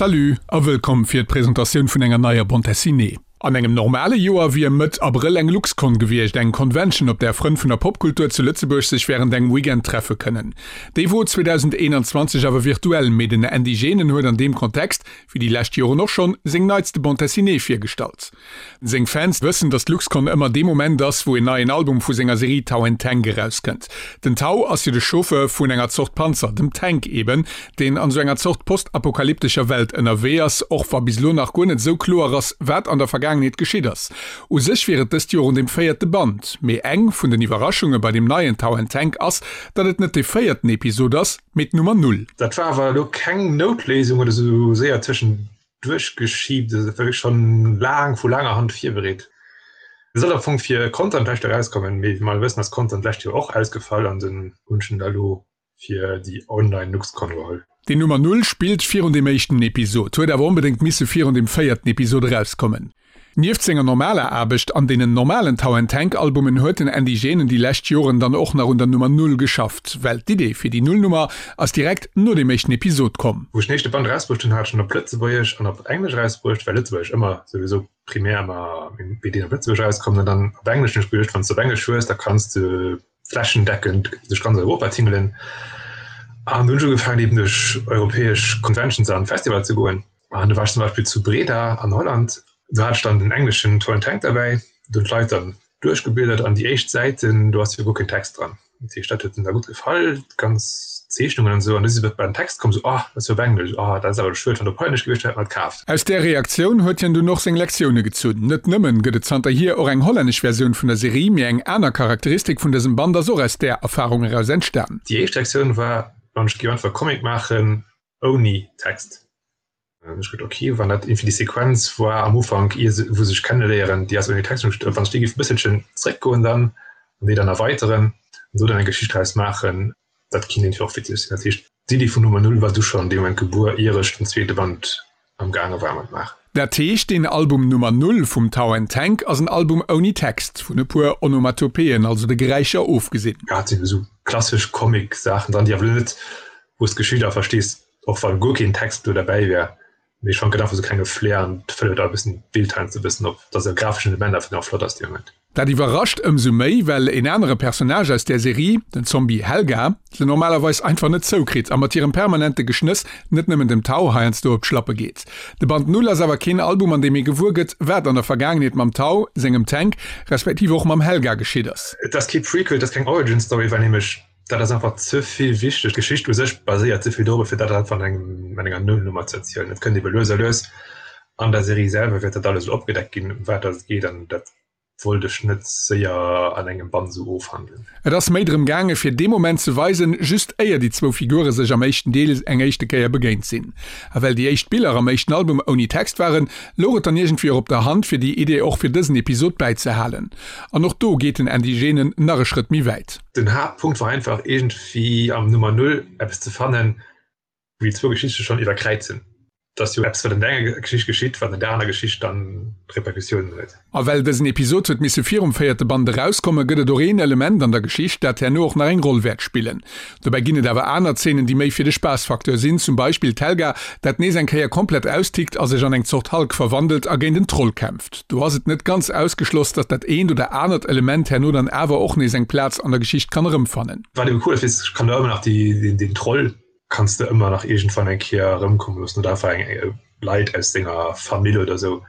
Salut a wëllkomm fir d'Presentatioun vun enger neier Bande Dessinée. An engem normale Joer wier Mëtt Abrëll eng Luxcon gewiescht, eng Convention, op där Frënn vun der Popkultur zu Lëtzebuerg sech wärend engem Weekend treffe kënnen. Déi wor 2021 awer virtuell, mee den Andy Genen huet an deem Kontext, wéi déi lescht Joren och schonn, seng neitste Bande Dessinée virgestallt. Seng Fans wëssen, datt d'Luxcon ëmmer dee Moment ass, wou en neien Album vu senger Serie Tau and Tank erauskënnt. Den Tau ass jo de Chauffeur vun enger Zort Panzer, dem Tank eben, deen an esou enger Zort postapokalyptescher Welt ënnerwee ass, och wa bis elo nach guer net esou kloer ass, wat an der Vergaangenheet geschitt ass. U sech wier et dëst Joer un dem véierte Band, mee eng vun den Iwwerraschunge bei deem neien Tau and Tank ass, datt et net dee véierten Episod ass, mee d'Nummer Null. Dat war awer elo keng Noutléisung oder sou séier tëschent duerchgeschiebt, dat war wierklech schonn laang vu laanger Hand virbereet. Et soll am Fong fir Content d'lescht Joer erauskommen, mee wéi mer alle wëssen ass Content d'lescht Joer och ausgefall an dunn hunn ech en da lo fir déi online LuxCon geholl. Déi Nummer Null spillt virun deem éischten Episod, huet awer onbedéngt misse virun deem véierten Episod erauskommen. Nieft senger normaler Aarbecht an deenen normalen Tau and Tank Albumen huet den Andy Genen déi lescht Joren dann och nach un der Nummer Null geschafft, well d'Idee fir déi Nullnummer ass direkt no deem éischten Episod komm. Wou ech den éischte Band erausbruecht hunn, hat ech en op Lëtzebuergesch an op Englesch erausbruecht, well Lëtzebuergesch ëmmer souwisou primär ëmmer meng BDen op Lëtzebuergesch erauskommen an dann op Englesch hunn ech geduecht, wann s de op Englesch hues, da kanns de flächendeckend duerch ganz Europa tingelen an dunn hunn ech ugefaangen eben duerch europäesch Conventions an Festivaler ze goen. An du war ech zum Beispill zu Breda an Holland, do hat ech dann den engleschen Toy and Tank derbäi, do hunn d'Leit dann duerchgebliedert an déi éischt Säiten, do ass jo guer keen Text dran. Dat heescht, dat huet hinnen da gutt gefall, d'ganz Zeechnungen an esou. An du si se bei den Text komm, esou, Oh, dat ass jo op Englesch, oh, dat ass awer schued, wann dat op Hollännesch gewiescht wär, hätt mer et kaaft. Aus där Reaktioun huet hien dunn och seng Lektioune gezunn. Net nëmmen gëtt et zanterhier och eng hollännesch Versioun vun der Serie, mee eng aner Charakteristik vun dësem Band ass och aus där Erfarung eraus entstan. Déi éischt Reaktioun war, Wann ech géif einfach e Comic maachen, ouni Text. An ech geduet, ok, wann dat iergendwéi déi Sequenz war am Ufank, ier se, wou se sech kenneléieren, déi ass ouni Text, an ech geduet, wann ech déi géif e bësselchen zréckgoen dann an déi dann erweiteren an do dann eng Geschicht draus maachen, dat kinnt iergendwéi och witzeg sinn. Dat heescht, d'Iddi vun Nummer Null war du schonn dee Moment gebuer, ier ech den zweete Band am gaange war mat maachen. Dat heescht, deen Album Nummer Null vum Tau and Tank ass en Album ouni Text, vun e puer Onomatopeen, also de Geräischer, ofgesinn. Jo, et sinn esou klassesch Comic-Saachen dran, déi awer elo net wou s d'Geschicht awer verstees, och wann guer keen Text do derbäi wär, mee ech fannt gëtt einfach sou klenge Flair an fëllt et e bëssen d'Bild heiansdo e bëssen op, dass e grafeschen Element einfach nach flott ass dee Moment. Dat iwwerrascht ëmsou méi, well en anere Personnage aus där Serie, den Zombie Helga, se normalerweis einfach net zoukritt a mat hirem permanente Geschnëss net nëmmen dem Tau heiansdo op d'Schlappe geet. De Band Null ass awer keen Album, an deem ee gewuer gëtt, wat an der Vergaangenheet mam Tau, sengem Tank, respektiv och mam Helga geschitt ass. Et ass kee Prequel, et ass keng Origin Story, well nämlech Dat ass einfach ze vill wichteg. D'Geschicht u sech baséiert ze vill dorop, fir dat einfach an engem, an enger Nullnummer ze erzielen. Et kënnt ebe lues a lues an der Serie selwer wäert dat alles esou opgedeckt ginn, ëm wat dass et geet, an dat wollt ech net séier an engem Band esou ofhandelen. Et ass méi drëm gaange fir dee Moment ze weisen, just éier déi zwou Figure sech am éischten Deel eng éischte Kéier begéint sinn. A well déi éischt Biller am éischten Album ouni Text waren, louch et dann iergendwéi och op der Hand, fir déi Idee och fir dësen Episod bäizehalen. An och do geet den Andy Genen nach e Schrëtt méi wäit. Den Haaptpunkt war einfach iergendwéi am Nummer Null eppes ze fannen, wou déi zwou Geschichte schonn iwwerkräizen. Et ass jo eppes, wat an der enger Geschicht geschitt, wat an der aner Geschicht dann Repercussiounen huet. A well dësen Episod huet misse virum véierte Band erauskommen, gëtt et och een Element an der Geschicht, dat herno och nach eng Roll wäert spillen. Dobäi ginn et awer aner Zeenen, déi méi fir de Spaassfacteur sinn, zum Beispill d'Helga, dat nees eng Kéier komplett austickt a sech an eng Zort Hulk verwandelt a géint en Troll kämpft. Do ass et net ganz ausgeschloss, datt dat eent oder anert Element herno dann awer och nees eng Plaz an der Geschicht kann erëmfannen. Wat eben cool ass, weess ech kann da ëmmer nach déi, den Troll kanns de ëmmer nach iergendwann eng Kéier erëmkomme loossen oder einfach eng Leit aus denger Famill oder sou.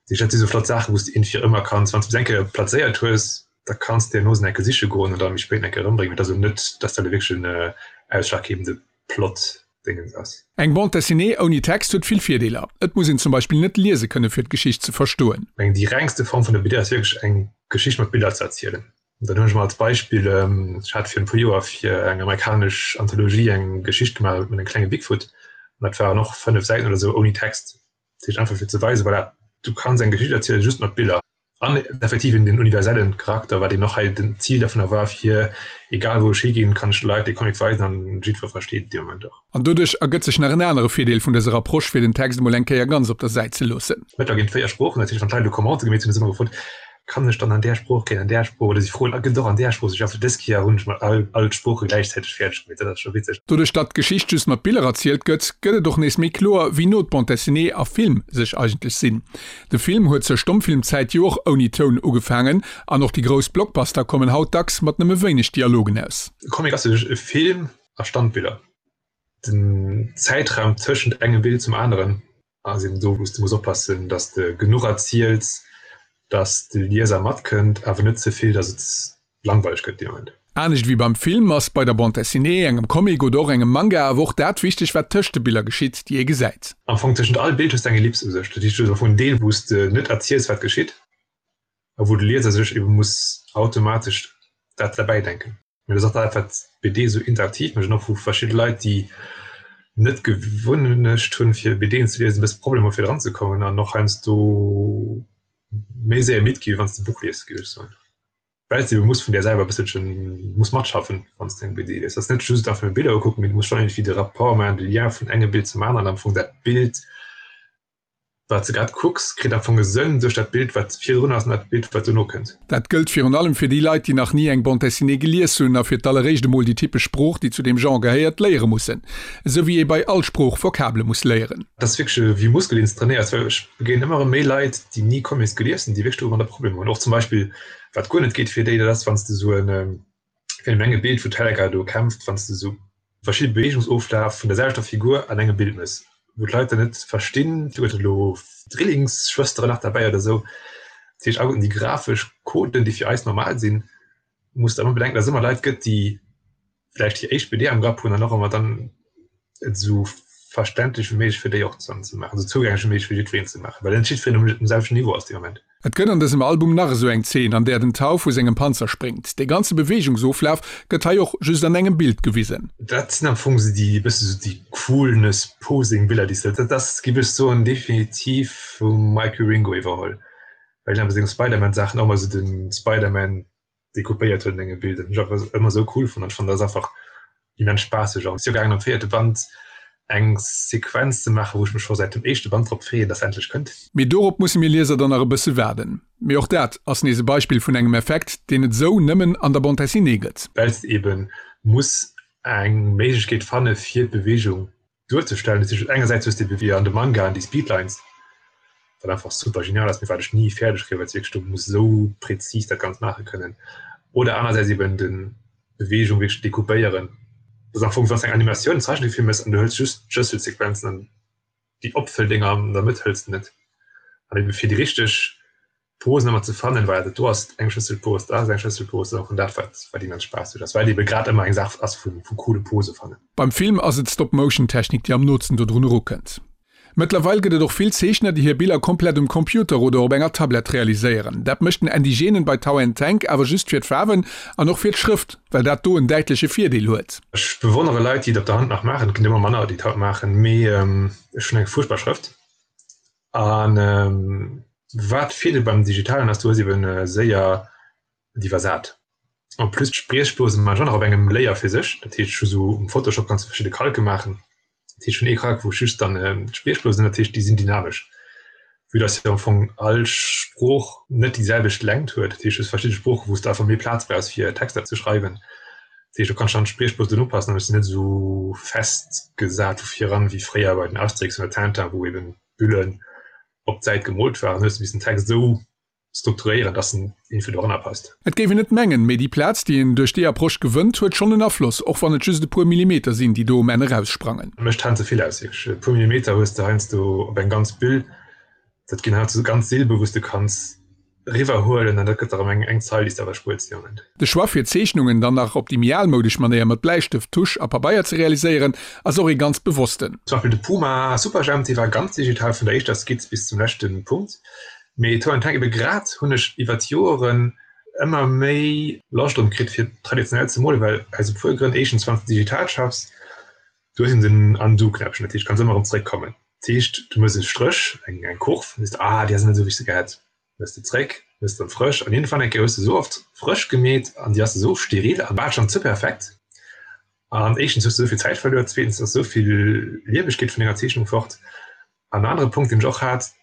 Dat si sou flott Saachen, wou s de iergendwéi ëmmer kanns, wann s de se eng Kéier plazéiert hues, da kanns de herno se eng Kéier siche goen an da méi spéit eng Kéier erëmbréngen. Et ass elo net, dass dat elo wierklech en ausschlaggebende Plot-Dingens ass. Eng Bande dessinée ouni Text huet vill Virdeeler. Et muss een zum Beispill net liese kënne fir d'Geschicht ze verstoen. Ech mengen déi rengste Form vun der BD ass wierklech eng Geschicht mat Biller ze erzielen. Dann hunn ech mol als Beispill, ech hat virun e puer Joer fir eng amerikanesch Anthologie eng Geschicht gemaach mat engem klenge Bigfoot an dat waren och 5 Säiten oder sou ouni Text. Dat heescht einfach fir ze weisen, voilà, du kanns eng Geschicht erzielen just mat Biller. An effektiv eben den universellen Charakter, wat eben och hei den Zil dovunner war, fir egal wou ech higinn, kann ech de Leit dee Comic weisen an jiddwer versteet et dee Moment och. An doduerch ergëtt sech nach en anere Virdeel vun dëser Approche, fir den Text emol eng Kéier ganz op der Säit ze loossen. Mëttlerweil ginn et 4 Sproochen, dat heescht wann d'Leit elo Commente gemeet hunn, hu se ëmmer gefrot. Kann ech dann an där Sprooch kréien, an där Sprooch? Oder si froen, gëtt et och an där Sprooch? Sou, ech, dës Kéier hunn ech mol all, all d'Sprooche gläichzäiteg fäerdeg gemeet. Dat ass scho witzeg. Doduerch datt d'Geschicht just mat Biller erzielt gëtt, gëtt et och nees méi kloer, wéi no d'Bande dessinée a Film sech eigentlech sinn. De Film huet zur Stommfilmzäit jo och ouni Toun ugefaangen an och déi grouss Blockbuster kommen haut dacks mat nëmme wéineg Dialogen aus. E Comic ass u sech e Film a Standbiller. Den Zäitraum tëschent engem Bild zum aneren ass eben do, wou s de muss oppassen, datt s de genuch erziels, datt de Lieser matkënnt, awer net ze vill, datt et langweileg gëtt dee Moment. Anescht ewéi beim Film ass bei der Bande dessinée, engem Comic oder och engem Manga awer och dat wichteg, wat tëscht de Biller geschitt, déi ee gesäit. Am Fong tëschent all Bild hues de eng Ellips u sech. Dat heescht, du hues am Fong en Deel, wou s de net erziels, wat geschitt, a wou de Lieser sech ebe muss automatesch dat derbäidenken. Mee dat ass och dat, wat d'BD esou interaktiv mécht an och wou verschidde Leit, déi net d'Gewunnecht hunn, fir BDen ze liesen, e bësse Problemer hu fir dran ze kommen an och heiansdo méi séier midd gi wéi wann s de e Buch lies, géif ech soen. Well s de ebe muss vun där selwer e bësselche muss matschaffen, wann s de eng BD lies. Et ass net just einfach nëmme Biller ukucken, mee du muss schonn iergendwéi de Rapport maachen, de Lien vun engem Bild zum aneren, am Fong dat Bild, Wat s de grad kucks, kritt am Fong e Sënn duerch dat Bild, wat virdrun ass an dat Bild, wat dono kënnt. Dat gëllt virun allem fir déi Leit, déi nach ni eng Bande dessinée gelies hunn a fir d'alleréischt emol déi typesch Sprooch, déi zu deem Genre gehéiert, léiere mussen. Esou wéi ee bei all Sprooch Vokabele muss léieren. Dat ass wierklech ewéi e Muskel, deen s de trainéiers, well ech begéinen ëmmer erëm méi Leit, déi ni Comics gelies hunn, déi wierklech domadder Problemer hunn. Och zum Beispill, wat guer net geet fir déi, dat ass, wann s de esou en Fir eng e Bild wou d'Helga do kämpft, wann s de sou verschidde Beweegungsoflaf vun der selwechter Figur an engem Bild mëss, wou d'Leit dann net verstinn, huet elo Drillingsschwësteren nach derbäi oder sou. Dat heescht alleguerten déi grafesch Coden, déi fir eis normal sinn, muss de ëmmer bedenken, datt et ëmmer Leit gëtt, déi vläicht hir éischt BD am Grapp hunn an och ëmmer dann et esou verständlech wéi méiglech fir déi och dann ze maachen, esou zougänglech wéi méiglech fir jiddwereen ze maachen, well net jiddwereen um um selwechten Niveau ass dee Moment. Et gëtt an dësem Album nach esou eng Zeen, an där den Tau vu sengem Panzer spréngt. Dee ganze Beweegungsoflaf gëtt hei och just an engem Bild gewisen. Dat sinn am Fong esou déi e bësse sou déi Coolness-Posing-Biller, déi s de, dat ass, géif ech soen, definitiv vum Mike Wieringo iwwerholl, well hien a senge Spider-Man-Saachen och ëmmer esou de Spider-Man decoupéiert huet an engem Bild. Dat hunn ech einfach ëmmer esou cool fonnt an ech fannen, dat ass einfach immens spaasseg. An et ass jo gaangen am véierte Band eng Sequenz ze maachen, wou ech mech scho säit dem éischte Band drop freeën, dass se endlech kënnt. Mee dorop musse mir Lieser dann nach e bësse waarden. Mee och dat ass nees e Beispill vun engem Effekt, deen et esou nëmmen an der Bande dessinée gëtt. Well s de eben muss eng Méiglechkeet fanne fir d'Beweegung duerzestellen. Dat heescht, engersäits hues de ebe wéi an de Mangaen déi Speedlines, wat einfach super genial ass, mee wat ech ni fäerdeg kréien, well s de wierklech do muss esou präzis dat Ganzt maache kënnen. Oder anersäits eben de Beweegung wierklech decoupéieren. Dat ass am Fong, wann s de eng Animatioun, en Zeichentrickfilm méchs an du hëls just d'Schlësselsequenzen an déi Opfëlldinger an der Mëtt hëls de net. An ebe fir déi richteg Posen ëmmer ze fannen, well dat do ass eng Schlësselpose, dat ass eng Schlësselpose, an dat wat wat immens Spaass mécht ass, well et ebe grad ëmmer eng Saach ass vu vu coole Pose fannen. Beim Film ass et d'Stop-Motion-Technik, déi am nootsten dodrun erukënnt. Mëttlerweil gëtt et och vill Zeechner, déi hir Biller komplett um Computer oder op enger Tablett realiséieren. Dat mécht den Andy Genen bei Tau and Tank awer just fir d'Faarwen an och fir d'Schrëft, well dat do en däitleche Virdeel huet. Ech bewonnere Leit, déi et op der Hand nach maachen, et ginn ëmmer manner, déi et haut maachen, mee ech hunn eng fuerchtbar Schrëft. An wat Virdeel beim Digitalen ass, du hues eben séier d'iwwersat. En plus d'Spriechblosen man ech och nach op engem Layer fir sech, dat heescht ech hu sou um Photoshop kanns du verschidde Kalke maachen, dat heescht ech hunn ee Kalk wou ech just dann d'Spriechblosen hunn, dat heescht déi sinn dynamesch, vue dass jo am Fong all Sprooch net déi selwecht Längt huet, dat heescht du hues verschidde Sproochen wou s de einfach méi Plaz brauchs fir Texter ze schreiwen, dat heescht do kanns du dann d'Spriechblosen upassen an ech sinn net esou festgesat vu viran wéi fréier bei den Asterix oder Tintin wou eben d'Büllen op d'Säit gemoolt waren, hues de missen den Text esou strukturéieren, dass en iergendwéi doranner passt. Et géif een net mengen, mee déi Plaz, déi een duerch déi Approche gewënnt, huet schonn en Afloss, och wann et just e puer Millimeter sinn, déi do um Enn eraussprangen. Mécht heiansdo vill aus, wierklech. E puer Millimeter hues de heiansdo op eng ganz Büll. Dat ginn heiansdo ganz Silbe, wou s de kanns eriwwer huelen an dat gëtt der erëm eng eng Zeil, déi s de awer spuers dee Moment. De Choix fir Zeechnungen dann nach op déi méi almoudesch Manéier mat Bläistëft, Tusch a Pabeier ze realiséieren, ass och ee ganz bewossten. Zum Beispill de Puma Superjhemp, dee war ganz digital vun der éischter Skizz bis zum leschte Punkt. Mee Toe and Tank ebe grad hunn ech iwwer d'Joeren ëmmer méi Loscht drun kritt fir traditionell ze molen, well aus e puer Grënn, éischtens wann s de digital schaffs, du hues eben den Undo-Knäppchen, dat heescht kanns ëmmer erëm zeréckkommen. Dat heescht du méchs e Stréch, eng eng Kurv, an sees de, ah déi ass net esou wéi ech se gehätt, méchs de zeréck, méchs de erëm frësch an iergendwann eng Kéier hues de esou oft frësch gemeet an déi ass esou steril a bal schonn ze perfekt an éischtens hues de esou vill Zäit verluer, zweetens ass esou vill Liewegkeet vun denger Zeechnung fort. An en anere Punkt deen ech och hat,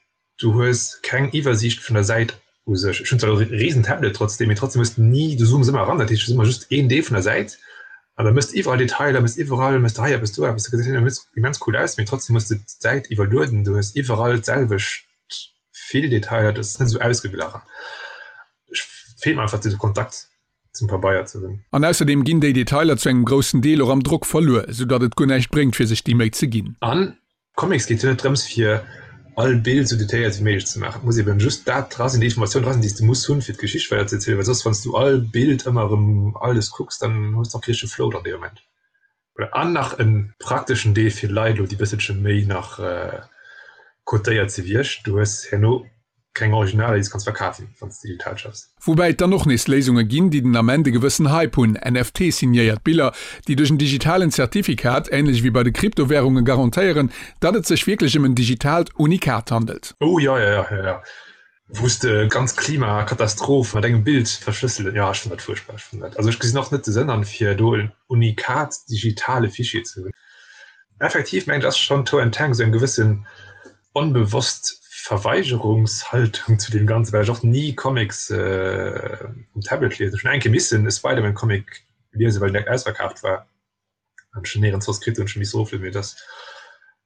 Du hues keng Iwwersiicht vun der Säit. U sech. Ech hunn zwar e riesen Tablet trotzdem, mee trotzdem hues de ni, du zooms ëmmer eran, dat heescht, et ass ëmmer just een Deel vun der Säit an da mëss de iwwerall Detailer, mëss iwwerall, mëss de hei eppes, do eppes, dat gesäit immens, immens cool aus, mee trotzdem hues de d'Säit iwwerlueden, du hues iwwerall d'selwecht vill Detailer, dat ass net esou ausgeglach an ech feelt mer einfach de Kontakt zum Pabeier ze hunn. An ausserdeem ginn déi Detailer zu engem groussen Deel och am Drock verluer, esou datt et guer näischt bréngt fir sech déi Méi ze ginn. An Comics geet jo net drëms fir all Bild sou detailléiert wéi méiglech ze maachen. Et muss eben just dat dra sinn, déi Informatioun dra sinn, déi s de muss hunn, fir d'Geschicht weider ze erzielen, well soss wann s du all Bild ëmmer erëm alles kucks, dann hues de och kee richtege Flow dran dee Moment. Voilà, an nach e prakteschen Deel fir Leit elo, déi bësselche méi nach cotéiert si wéi ech, du hues herno keng Originaler, déi s kanns verkafen, wann s digital schaffs. Woubäi et dann och nees Léisunge ginn, déi den Ament e gewëssen Hype hunn, NFT-signéiert Biller, déi duerch en digitalen Zertifikat, änlech ewéi bei de Kryptowärungen, garantéieren, datt et sech wierklech ëm en digitaalt Unikat handelt. Oh jo, jo, jo, jo, wou s de ganz Klimakatastroph mat engem Bild verschlësselen. Jo, ech fannen dat fuerchtbar. Ech fannen dat, also ech gesinn och net de Sënn an, fir do en Unikat digitale Fichier ze hunn. Effektiv mengen ech ass schonn Toe and Tank esou eng gewëssen onbewosst Verweigerungshaltung zu deem Ganzen, well ech och ni Comics um Tablet liesen. Ech hunn eng Kéier missen e Spider-Man-Comic liesen, well den direkt ausverkaaft war an ech en néierens soss kritt hunn, ech hu misse eroflueden, mee dat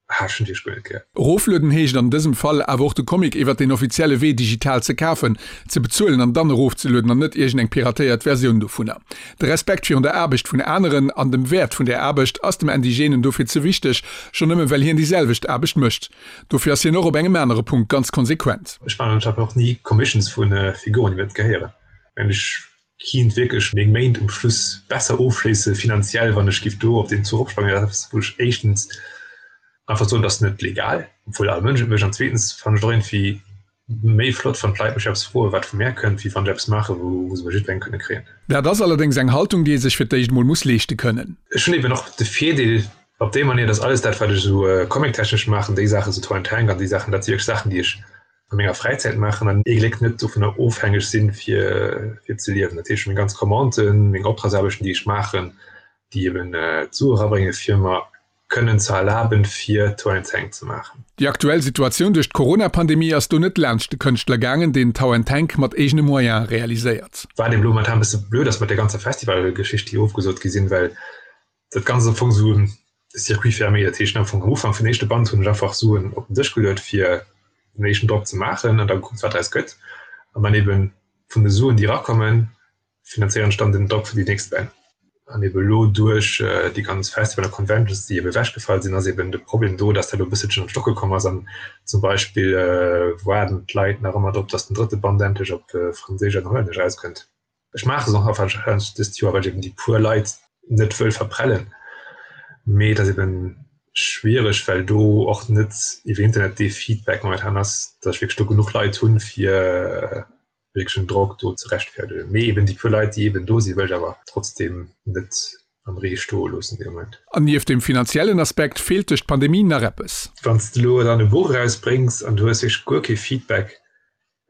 ah, ech hunn wierklech guer net gär. Eroflueden heescht an dësem Fall awer och de Comic iwwert den offizielle Wee digital ze kafen, ze bezuelen an dann erofzelueden an net iergend eng piratéiert Versioun dovunner. De Respekt virun der Aarbecht vun aneren an dem Wäert vun där Aarbecht ass dem Indigenen dofir ze wichteg, schonn nëmme well hien déi selwecht Aarbecht mécht. Dofir ass hien och op engem anere Punkt ganz konsequent. Ech maachen anscheinend och ni Commissions vu Figuren, déi mir net gehéieren. Well ech kinnt wierklech meng Méint um Schluss besser ofschléisse finanziell, wann ech giff do op deen Zuch opsprangen. Dat ass eppes, wou ech éischtens einfach soen, dat ass net legal, obwuel all Mënsch et mécht, an zweetens fannen ech et och iergendwéi Méi flott wann d'Leit mech eppes froen wat vu mär kënnt, wéi wann ech eppes maachen wou se bei jiddwerengem kënne kréien. Dat ass allerdéngs eng Haltung déi ee sech fir d'éischt mol muss leeschte kënnen. Ech hunn eben och de Virdeel op déi Manier, dass alles dat wat ech esou comic-technesch maachen, déi Saachen esou Toy and Tank an déi Saachen, dat si wierklech Saachen déi ech a menger Fräizäit maachen an ee Gléck net dovunner ofhängeg sinn fir fir ze liewen. Dat heescht meng ganz Commanden, meng Optragsaarbechten déi ech maachen, déi eben d'Sue erabrénge fir mer kënnen ze erlaben, fir Tow and Tank ze maachen. Déi aktuell Situatioun duerch d'Corona-Pandemie ass do net laanscht de Kënschtler gaangen, deen Tow and Tank mat eegene Moyene realiséiert. Wat eben elo momentan e bësse blöd ass mat där ganzer Festivalgeschicht, déi ofgesot gi sinn, well dat Ganzt am Fong esou e Circuit fermé, dat heescht am Fong am Ufank vum éischte Band hunn ech einfach Suen op den Dësch geluet, fir den éischten Drock ze maachen an da gekuckt, wat draus gëtt. An dann eben vun de Suen, déi erakommen, finanzéieren ech dann den Drock fir déi nächst Bänn. An ebe lo duerch déi ganz Festival a Conventions, déi ebe ewechgefall sinn, ass eben de Problem do, dass dat elo e bësselchen an d'Stocke komm ass. An zum Beispill waarden d'Leit nach ëmmer drop, dass den drëtte Band endlech op Franséisch an Hollännesch erauskënnt. Ech maache se och nach warscheinlech dëst Joer, well ech eben déi puer Leit net wëll verprellen. Mee et ass eben schwiereg, well do och net iwwer Internet dee Feedback momentan ass, dass ech wierklech do genuch Leit hunn, fir wierklechen Drock do ze rechtfäerdegen. Mee eben déi puer Leit, déi eben do sinn, wëll ech awer trotzdem net am Ree stoe loossen dee Moment. An nieft dem finanziellen Aspekt feelt duerch d'Pandemie nach eppes. Wann s de elo dann e Buch erausbréngs an du hues wierklech guer kee Feedback,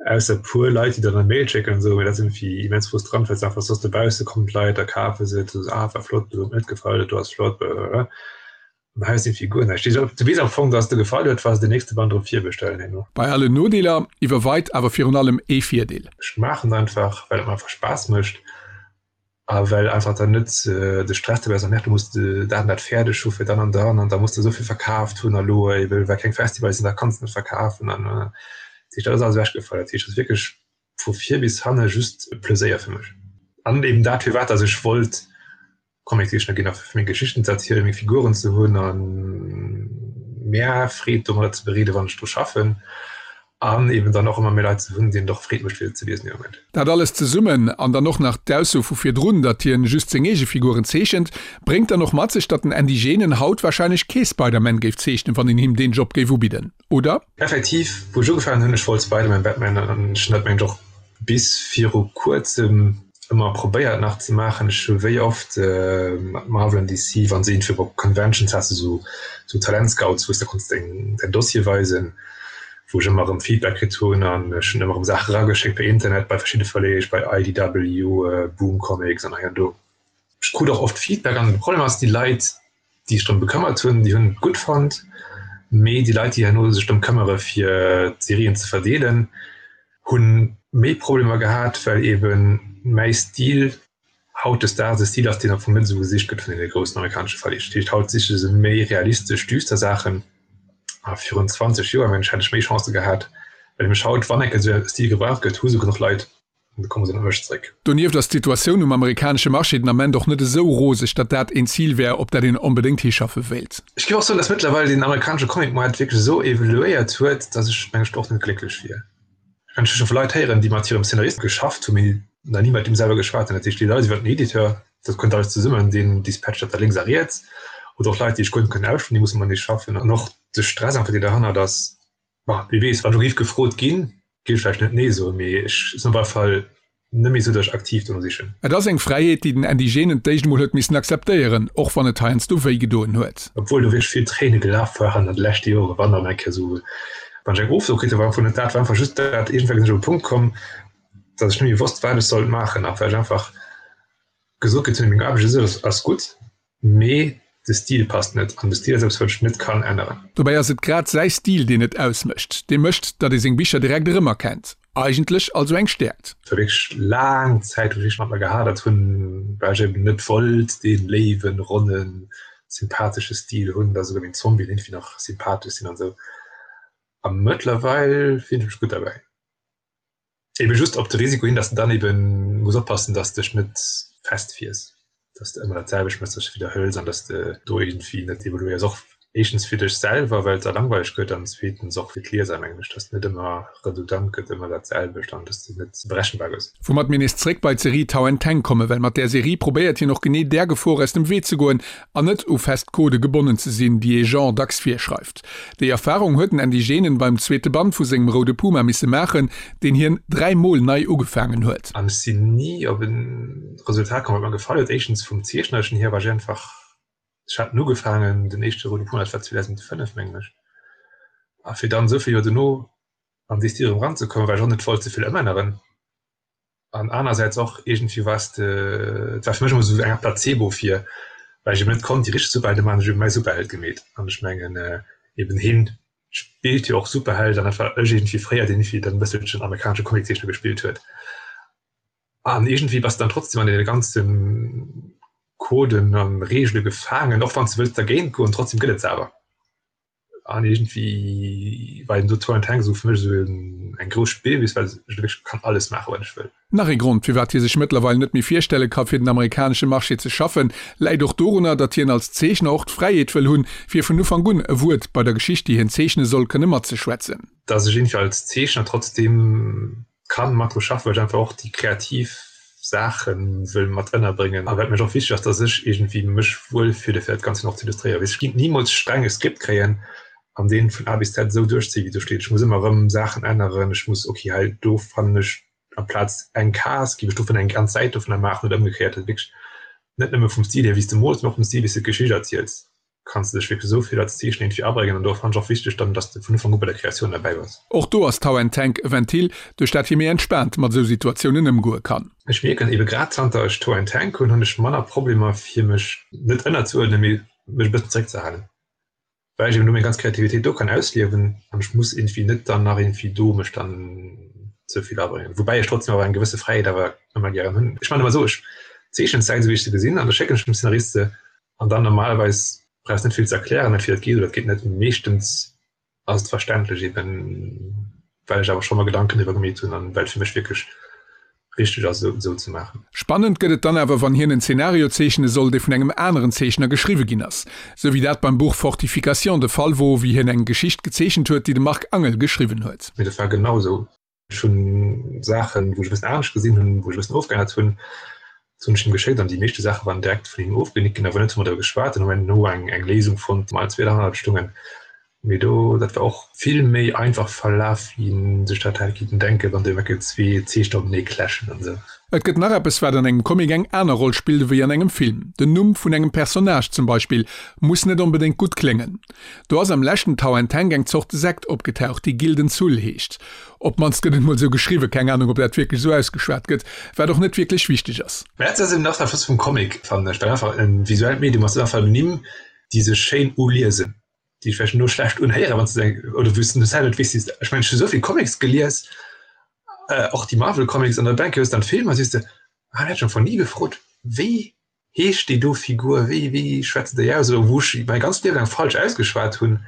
ausser e puer Leit, déi der dann e Mail schécken an esou, mee dat ass iergendwéi immens frustrant, well s einfach soss dobausse kommen d'Leit a kafe se, du soos, ah war flott, do huet mir net gefall, dat do ass flott, blablabla. An hei ass iergendwéi guer näischt. Du weess am Fong, dass et der gefall huet, wa se den nächste Band erëm virbestellen herno. Bei allen Nodeeler iwwerweit awer virun allem ee Virdeel. Ech maachen et einfach, well et mer einfach Spaass mécht a well einfach dann net de Stress dobäi ass, ach du muss dat an dat fäerdeg hu fir dann an dann an da muss de esou vill verkaaft hunn a lo ebe well keng Festivals sinn, da kanns de net verkafen an dat heescht, dat ass alles ewechgefall. Dat heescht, et ass wierklech vu vir bis hanne just e Pleséier fir mech an eben dat firwat dass ech wollt Comiczeechner ginn a fir meng Geschichten ze erzielen, meng Figuren ze hunn a mär Freed domadder ze bereeden, wann ech dru schaffen an eben dann och ëmmer méi Leit ze hunn, deenen et och Freed mécht fir se ze liesen dee Moment. Dat alles zesummen, an dann och nach d'Ausso vu virdrun, datt hien just seng eege Figuren zeechent, bréngt dann och mat sech, datt den Andy Genen haut warscheinlech kee Spider-Man géif zeechnen, wann een him deen Job géif ubidden. Oder? Effektiv, wou ech ugefaangen hunn, ech wollt Spider-Man, Batman an ech hunn dat mengen ech och bis viru kuerzem ëmmer probéiert nach ze maachen. Ech hu wéi oft mat Marvel an DC, wann se iergendwéi op Conventions has de sou sou Talentscouts, wou s de konns deng däin Dossier weisen, wou ech ëmmer erëm Feedback kritt hunn an ech hunn ëmmer erëm Saache erageschéckt per Internet bei verschidde Verleeg, bei IDW, Boom Comics an hei an do. Ech krut och oft Feedback an de Problem ass, déi Leit, déi sech drëm bekëmmert hunn, déi hunn et gutt fonnt, mee déi Leit, déi herno sech drëm këmmere fir d'Serien ze verdeelen, hunn. méi Problemer gehat, well eben mäi Stil hautdesdaags e Stil ass, deen am Fong net esou gesicht gëtt vun deene groussen amerikanesche Verleeg. Dat heescht, haut siche se méi realistesch, düster Saachen. A virun 20 Joer, mengen ech, hätt ech méi Chancë gehat, well nämlech haut, wann eng Kéier esou e Stil gebraucht gëtt, hu se genuch Leit an da komme se op mech zréck. Donieft ass d'Situatioun um amerikanesche Marché den Ament och net esou roseg, datt dat een Zil wär, op dat een onbedéngt hischaffe wéilt. Ech géif och soen, datt mëttlerweil den amerikanesche Comic-Moart wierklech esou evoluéiert huet, datt ech, mengen ech, och net glécklech wier. Ech kann scho vu Leit héieren, déi mat hirem Szenarist geschafft hunn, mee nach ni mat deem selwer geschwat hunn. Dat heescht, déi Leit iwwer den Editeur, dat kënnt alles zesummen, deen dispatcht dat da lénks a riets. Oder och Leit, déi ech guer net kënnen ausschwätzen, déi musse matenee schaffen. An och de Stress einfach, deen derhannert ass, bon, wie weess, wann ech elo géif gefrot ginn, géif ech vläicht net Nee soen, mee ech sinn op alle Fall net méi esou, datt ech aktiv dono sichen. Et ass eng Fräiheet, déi den Andy Genen d'éischt emol huet missen akzeptéieren, och wann et heiansdo wéi gedoen huet. Obwuel do wierklech vill Tréine gelaf waren an de leschte Joren, wann dann eng Kéier esou, wann ech eng Ofso kritt hunn, war am Fong net dat, war einfach just dat, iergendwéi sinn ech op e Punkt komm, datt ech net méi wosst, wat ech sollt maachen a well ech einfach gesot kritt hunn, meng Aarbecht u sech ass gutt, Mee de Stil passt net, an de Stil ass eppes wat ech net kann änneren. Dobäi ass et grad säi Stil deen et ausmécht, dee mécht, datt ee seng Bicher direkt erëmerkennt. Eigentlech also eng Stäerkt. Et war wierklech laang Zäit wou ech wierklech mat mer gehadert hunn, well ech eben net wollt dee léiwen, ronnen, sympathesche Stil hunn, datt esouguer meng Zombien iergendwéi nach sympathesch sinn an esou. A mëttlerweil fillen ech mech gutt derbäi. Eben just op de Risiko hin, dass de dann eben muss oppassen, dass dech net festfiers, dass de ëmmer dat selwecht méchs, dass de widderhëls an dass de do iergendwéi net evoluéiers. Och éischtens fir dech selwer, well et da langweileg gëtt an zweetens och fir d'Lieser, mengen ech, dass net ëmmer redundant gëtt, ëmmer dat selwecht an dass de net berechenbar gëss. Woumat mir nees zréck bei d'Serie Tau and Teng kommen, well mat där Serie probéiert hien och genee där Gefor aus dem Wee ze goen an net u fest Codë gebonnen ze sinn, déi ee Genre dacks virschreift. Déi Erfarung huet den Andy Genen beim zweete Band vu sengem Roude Puma misse maachen, deen hien 3 Mol nei ugefaangen huet. An ech sinn ni op e Resultat komm, wat mer gefall huet. Éischtens vum Zeechnerlechen hier war ech einfach, ech hat en ugefaangen, den éischte Roude Puma, dat war 2005, mengen ech, a fir dann esou vill Joer dono an déi Stil erëm eranzekommen, well ech och net wollt ze vill ëmänneren. An anersäits och iergendwéi war s de, et war fir mech ëmmer esou eng Art Placebo fir, well ech eben net konnt déi richteg Superhelde maachen, ech hu eben mäi Superheld gemeet. An ech mengen eben hien spillt jo och Superheld an dat war ech iergendwéi fréier, deen iergendwéi dann e bësselchen amerikanesche Comiczeechner gespillt huet. An iergendwéi bass de dann trotzdem an deene ganze Coden a Reegele gefaangen, och wann s de wëlls dergéint goen, trotzdem gëtt et se awer. An iergendwéi war eben do Tour and Tank esou fir mech esou eng grouss Spillwiss, well ech do wierklech kann alles maachen, wat ech wëll. Nach ee Grond, firwat hie sech mëttlerweil net méi virstelle ka fir den amerikanesche Marché ze schaffen, läit och dorunner, datt hien als Zeechner och d'Fräiheet wëll hunn, fir vun Ufank un e Wuert bei der Geschicht, déi hien zeechne soll, kënne matzeschwätzen. Datt ech iergendwéi als Zeechner trotzdeem kann mat dru schaffen, well ech einfach och déi kreativ Saache wëll mat ënnerbréngen a wat mech och wichteg ass, dass ech iergendwéi mech wuel fille fir dat Ganzt och ze illustréieren. Weess ech géing nimools streng e Skript kréien an deen vun A bis Z esou duerchzéien wéi do steet. Ech muss ëmmer erëm Saachen änneren, ech muss ok hei do fannen ech amplaz eng Case géif ech dovun eng ganz Säit dovunner maachen oder ëmgekéiert. Dat wierklech net nëmme vum Stil hier wéi s de mools, mee och vum Stil wéi s de d'Geschicht erziels. Kanns de dech wierklech esou vill als Zeechen iergendwéi abréngen an do fannen ech och wichteg dann, dass de vun Ufank u bei der Kreatioun derbäi bass. Och do ass Tau and Tank e Ventil, duerch dat hie méi entspaant mat esou Situatiounen ëmgoe kann. Ech mierken ebe grad zanter ech Tau and Tank hunn, hunn ech manner Problemer fir mech net ënnerzuerdnen, mee mech e bëssen zeréckzehalen, well ech eben do meng ganz Kreativitéit do kann ausliewen an ech muss iergendwéi net dann nach iergendwéi do mech dann ze vill abréngen. Woubäi ech trotzdem awer eng gewësse Fräiheet awer ëmmer gären hunn. Ech maachen ëmmer esou, ech zeechnen d'Säit esou wéi ech se gesinn an da schécken ech dem Szenarist se An dann normalerweis brauchs net vill ze erklären, entweder et geet oder et geet net. Meeschtens ass et verständlech eben well ech awer scho mer Gedanken driwwer gemeet hunn an well et fir mech wierklech richteg ass esou esou ze maachen. Spannend gëtt et dann awer wann hien en Zenario zeechne soll, dee vun engem aneren Zeechner geschriwwe ginn ass. Sou wéi dat beim Buch Fortification de Fall wor, wéi hien eng Geschicht gezeechent huet, déi de Marc Angel geschriwwen huet. Mee dat war genau esou. Ech hunn Saachen, wou ech e bëssen anescht gesinn hunn, wou ech e bëssen ofgeännert hunn, dat hunn ech him geschéckt an déi meeschte Saache waren direkt vun him ofgenickt ginn. Awer net hu mer driwwer geschwat, dann hu mer herno eng eng Léisung fonnt, déi mer allen zwee derhannert stungen. Mee do, dat war och vill méi einfach verlaf, wéi een sech dat hätt kinnten denken, wann do ewell zwee Zeechner openee clashen an esou. Et gëtt nach eppes, wat an engem Comic eng aner Roll spillt ewéi an engem Film. Den Numm vun engem Personnage zum Beispill muss net onbedéngt gutt kléngen. Do ass am leschten Tau and Tank eng Zort Sekt opgetaucht, déi Gilden Zull heescht. Op d'mannst gëtt et mol sou geschriwwen, keng Ahnung ob dat wierklech sou ausgeschwat gëtt, wat och net wierklech wichteg ass. Mä dat ass eben och dat Flott vum Comic, fannen ech, well einfach e visuellt Medium ass, einfach Nimm, déi sech schéin uliesen, déi vläicht elo schlecht unhéieren, wann s de se, oder wou s de selwer net weess, ech mengen, ech hu sou vill Comics gelies. Och déi Marvel Comics an der Bank hues dann d'Filmer siehst de, ah hat schon von nie gefrot, wéi heescht déi do Figur, wéi wéi schwätzt déi aus oder wou ech mäi ganzt Liewe laang falsch ausgeschwat hunn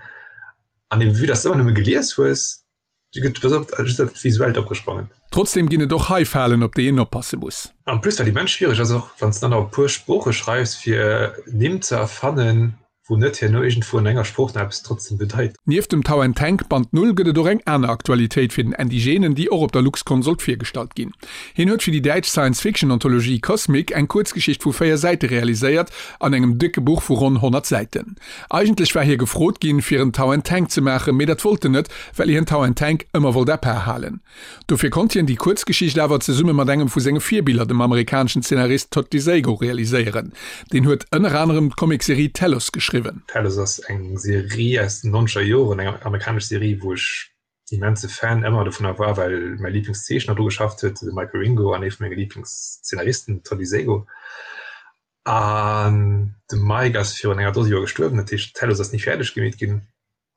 an eben vue dass de ëmmer nëmme gelies hues, du gëtt pass op just dat Visuellt opgesprongen. Trotzdem ginn et och hei Falen op déi een oppasse muss. En plus wat immens schwiereg ass, och wann s de dann nach e puer Sprooche schreifs fir Nimm ze erfannen, wou net herno iergendwou an enger Sprooch nach eppes trotzdem bedeit. Nieft dem Tau and Tank Band Null gëtt et och eng aner Aktualitéit fir den Andy Genen, déi och op der Luxcon sollt virgestallt ginn. Hien huet fir déi däitsch Science-Fiction-Anthologie Cosmic eng Kuerzgeschicht vu 4 Säite realiséiert, an engem décke Buch vu ronn 100 Säiten. Eigentlech war hie gefrot ginn, fir en Tau and Tank ze maachen, mee dat wollt en net, well hien Tau and Tank ëmmer wollt à part halen. Dofir konnt hien déi Kuerzgeschicht awer zesumme mat engem vu senge Virbiller, dem amerikaneschen Zeenarist Todd DeSago, realiséieren. Deen huet ënner anerem d'Comicserie Telos geschriwwen. Telos ass eng Serie aus den nonzeger Joren, eng amerikanesch Serie, wou ech immense Fan ëmmer dovunner war, well mäi Liblingszeechner dru geschafft huet, de Mike Wieringo, an ee vu menge Liblingszeenaristen, den Todd DeSago. An de Mike ass virun enger Dose Joer gestuerwen, dat heescht Telos ass ni fäerdeg gemeet ginn.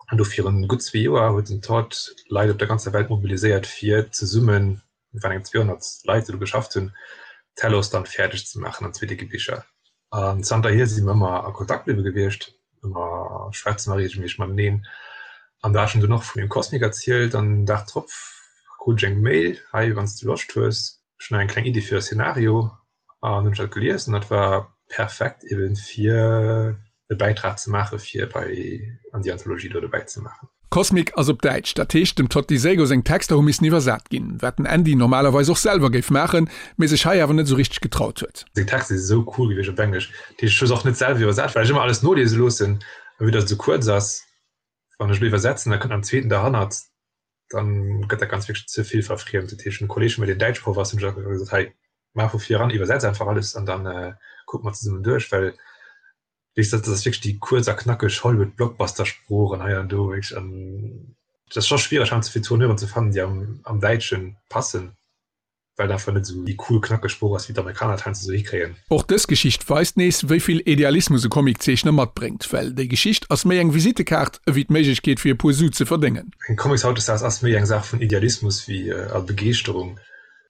An do virun gutt zwee Joer huet den Todd Leit op der ganzer Welt mobiliséiert fir zesummen, et waren eng 200 Leit déi do geschafft hunn, Telos dann fäerdeg ze maachen an zwee décke Bicher. An zanterhier si mer ëmmer a Kontakt bliwwe gewiescht, ëmmer schwätze mer reegelméisseg mateneen. An da hat ech him dunn och vun dem Cosmic erzielt an den Dag drop krut ech eng Mail, hei wann s de Loscht hues, ech hunn nach eng kleng Iddi fir e Szenario an hunn ech dat gelies an dat war perfekt eben fir e Bäitrag ze maache fir bei an déi Anthologie do dobäi ze maachen. Cosmic ass op Däitsch, dat heescht dem Todd DeSago seng Texter hu missen iwwersat ginn, wat den Andy normalerweis och selwer géif maachen, mee sech hei awer net esou richteg getraut huet. Seng Texter si sou cool gewiescht op Englesch, dat heescht ech hu se och net selwer iwwersat, well ech ëmmer alles noliese loossen a vue dass et sou kuerz ass, wann ech elo iwwersetzen, da kënnt nach en zweeten derhannert, dann gëtt dat ganz wierklech ze vill verfriemt. Dat heescht, en Kolleg vun mir, deen Däitschproff ass, hunn ech einfach gesot, hei, maach vu vir eran, iwwersetz einfach alles an dann kucke mer zesummen duerch, well weess dat ass wierklech déi kuerz a knackeg Hollywood-Blockbuster-Sprooch an hei an do wierklech an dat ass scho schwiereg heiansdo fir Tourneuren ze fannen, déi am am Däitsche passen. Well einfach net esou déi cool knackeg Sprooch ass wéi d'Amerikaner et heiansdo esou hikréien. Och dës Geschicht weist nees, wéi vill Idealismus e Comiczeechner matbréngt, well déi Geschicht ass méi eng Visittekaart ewéi d'Méiglechkeet fir e puer Su ze verdéngen. Eng Comics hautdesdaags ass méi eng Saach vun Idealismus wéi a Begeeschterung.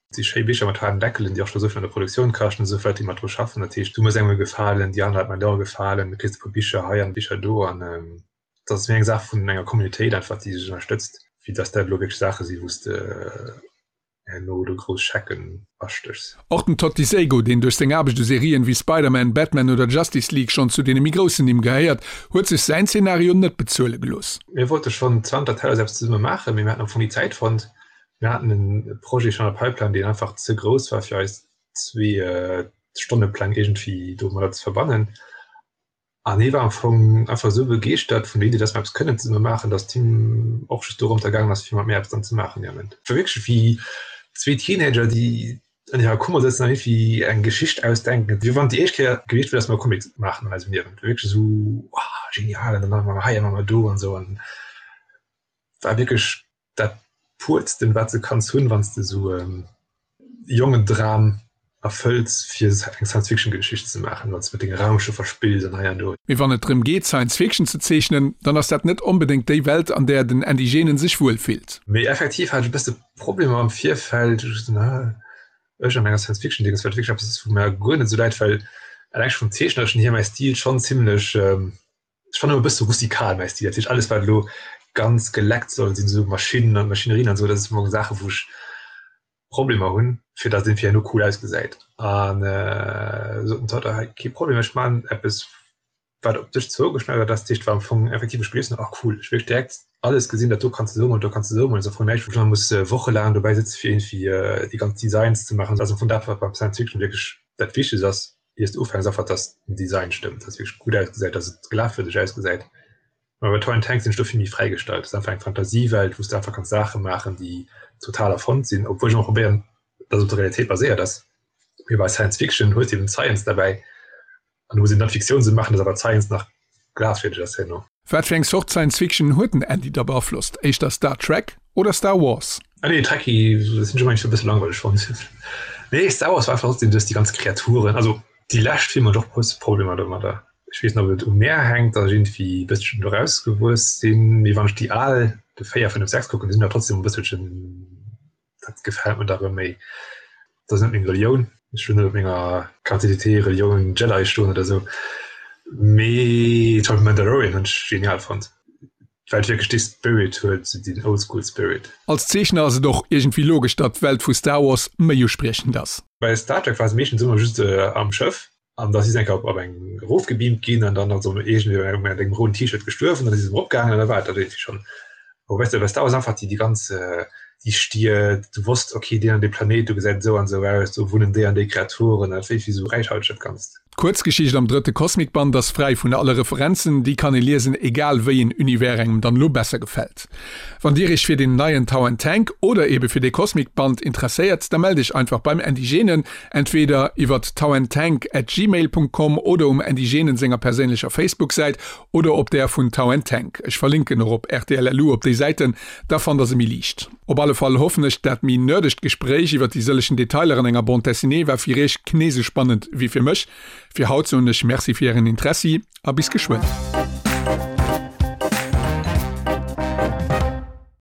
Et si schéi Bicher mat haarden Deckelen, déi och scho souvill an der Produktioun kaschten, esou vill Leit déi mat dru schaffen. Dat heescht, du muss engem gefalen, déi aner Leit man dir och gefalen, du kriss e puer Bicher hei an Bicher do an et ass méi eng Saach vun enger Communautéit einfach, déi sech ënnerstëtzt, wéi dass dat elo wierklech Saache si wou s de herno do grouss Schecken astéchs. Och den Todd DeSago, deen duerch seng Aarbecht u Serien wéi Spider-Man, Batman oder Justice League schonn zu deene méi groussen Nimm gehéiert, huet sech säin Zenario net bezuele gelooss. Mir wollte schonn zanter Tellers eppes zesumme maachen, mee mir haten am Fong ni Zäit fonnt. Mir haten e Projet schonn an der Pipeline, deen einfach ze grouss war fir eis zwee Stonnepläng iergendwéi domadder ze verbannen. An hie war am Fong einfach esou begeeschtert vun der Iddi, dass mer eppes kënnen zesumme maachen, dass d'Team och just dorëmter gaangen ass, fir mat mir eppes dann ze maachen dee Ament. Et war wierklech wéi zwee Teenager, déi an hirer Kummer sëtzen an iergendwéi eng Geschicht ausdenken, wéi wann et déi éischt Kéier gewiescht wier, dass mer e Comic maachen an eisem Liewen. Et war wierklech esou, Wow, genial an dann maache mer hei a maache mer do an esou an war wierklech dat puertsten wat de kanns hunn wann s de esou e Jongendram erfëlls fir eng Science-Fiction-Geschicht ze maachen, wann s de mat denge Raumschëffer spills an hei an do. Mee wann et drëm geet Science Fiction ze zeechnen, dann ass dat net onbedéngt déi Welt an där den Andy Genen sech wuel fillt. Mee effektiv hat ech e bësse Problemer am Virfeld, ech an enger Science-Fiction-Dinges, wat wierklech eppes ass wou mer guer net esou läit, well eleng scho vum Zeechnerschen hier mäi Stil schonn zimmlech Ech fannen e bësse rustikal mäi Stil, dat heescht alles wat elo ganz geleckt soll sinn, esou Maschinnen an Maschinerien an esou, dat ass am Fong Saache wou ech Problemer hunn, fir datt et irgendwie herno cool ausgesäit. An sot den Todd, hei kee Problem, ech man eppes wat op dech zougeschneidert ass, dat heescht war am Fong effektiv ech gelies hunn, ach cool, ech wierklech direkt alles gesinn, dat do kanns de esou mol, do kanns de esou mol, ass am Fong näischt wou ech nach muss wochelaang dobäi sëtze fir irgendwie déi ganz Designs ze maachen, ass am Fong dat wat beim Science Fiction wierklech dat Wichtegst ass. iers de ufänks einfach dass den Design stëmmt, dass wierklech gutt ausgesäit, dass et glafwierdeg ausgesäit. Mä bei Toy and Tank sinn ech do vill méi fräigestallt. Dat ass einfach eng Fantasiewelt, wou s de einfach kanns Saache maachen, déi total erfonnt sinn, obwuel ech ëmmer probéieren, dass et op der Realitéit baséiert ass. Mee bei Science Fiction hues de eben d'Science derbäi an du muss eben dann d'Fiktioun esou maachen, dass awer d'Science nach glafwierdeg ass herno. Wat fir eng Zort Science Fiction huet den Andy da beaflosst? Éischter Star Trek oder Star Wars? Ah nee, Trekkie sinn ech ëmmer e bësse langweileg fonnt. Nee, Star Wars war einfach trotzdem duerch déi ganz Kreaturen, also déi lescht Filmer hunn ech och e bësse Problemer domadder. Ech weess net, ob et u mär hänkt, datt ech iergendwéi e bësselchen do rausgewuess sinn, mee wann ech déi al, de 4, 5, 6 kucken, déi sinn awer trotzdem e bësselchen. Dat gefält mir da rëm méi. Dat ass net meng Relioun, ech wëll net op menger Carte d'identité Relioun Jedi stoen oder esou, mee zum Beispill Mandalorian hunn ech genial fonnt, well et wierklech dee Spirit huet, deen Oldschool Spirit. Als Zeechner ass et och iergendwéi logesch, datt d'Welt vu Star Wars méi uspriechend ass. Bei Star Trek war se meeschtens ëmmer just am Schëff an da si se eng Kéier op eng erofgebeamt ginn an dann ass se iergendwéi mat engem rouden T-Shirt gestuerwen, dann si se erëm eropgaangen an da war et dat iergendwéi schonn. Awer weess de, bei Star Wars einfach déi déi ganz déi Stied, du wosst okay deen an dee Planéit do gesäit esou an esou aus, do wunnen déi an déi Kreaturen, dat wéi esou räichhalteg dat Ganzt. D'Kuerzgeschicht am drëtte Cosmic-Band ass fräi vun alle Referenzen, déi kann ee liesen, egal wéi een Univers engem dann elo besser gefält. Wann dir iech fir deen neien Tau and Tank oder ebe fir dee Cosmic Band interesséiert, da mellt iech einfach beim Andy Genen, entweder iwwert tauandtank at gmail Punkt com oder um Andy Genen senger perséinlecher Facebook Säit oder op där vun Tau and Tank. Ech verlinken och op rtl.lu op déi Säiten, da fannt der se méi liicht. Op alle Fall hoffen ech, dat méi nerdegt Gespréich iwwert déi sëllechen Detailer an enger Bande Dessinée war fir iech knee sou spannend wéi fir mech. Fir haut soen ech Merci fir ären Interessi a bis geschwënn.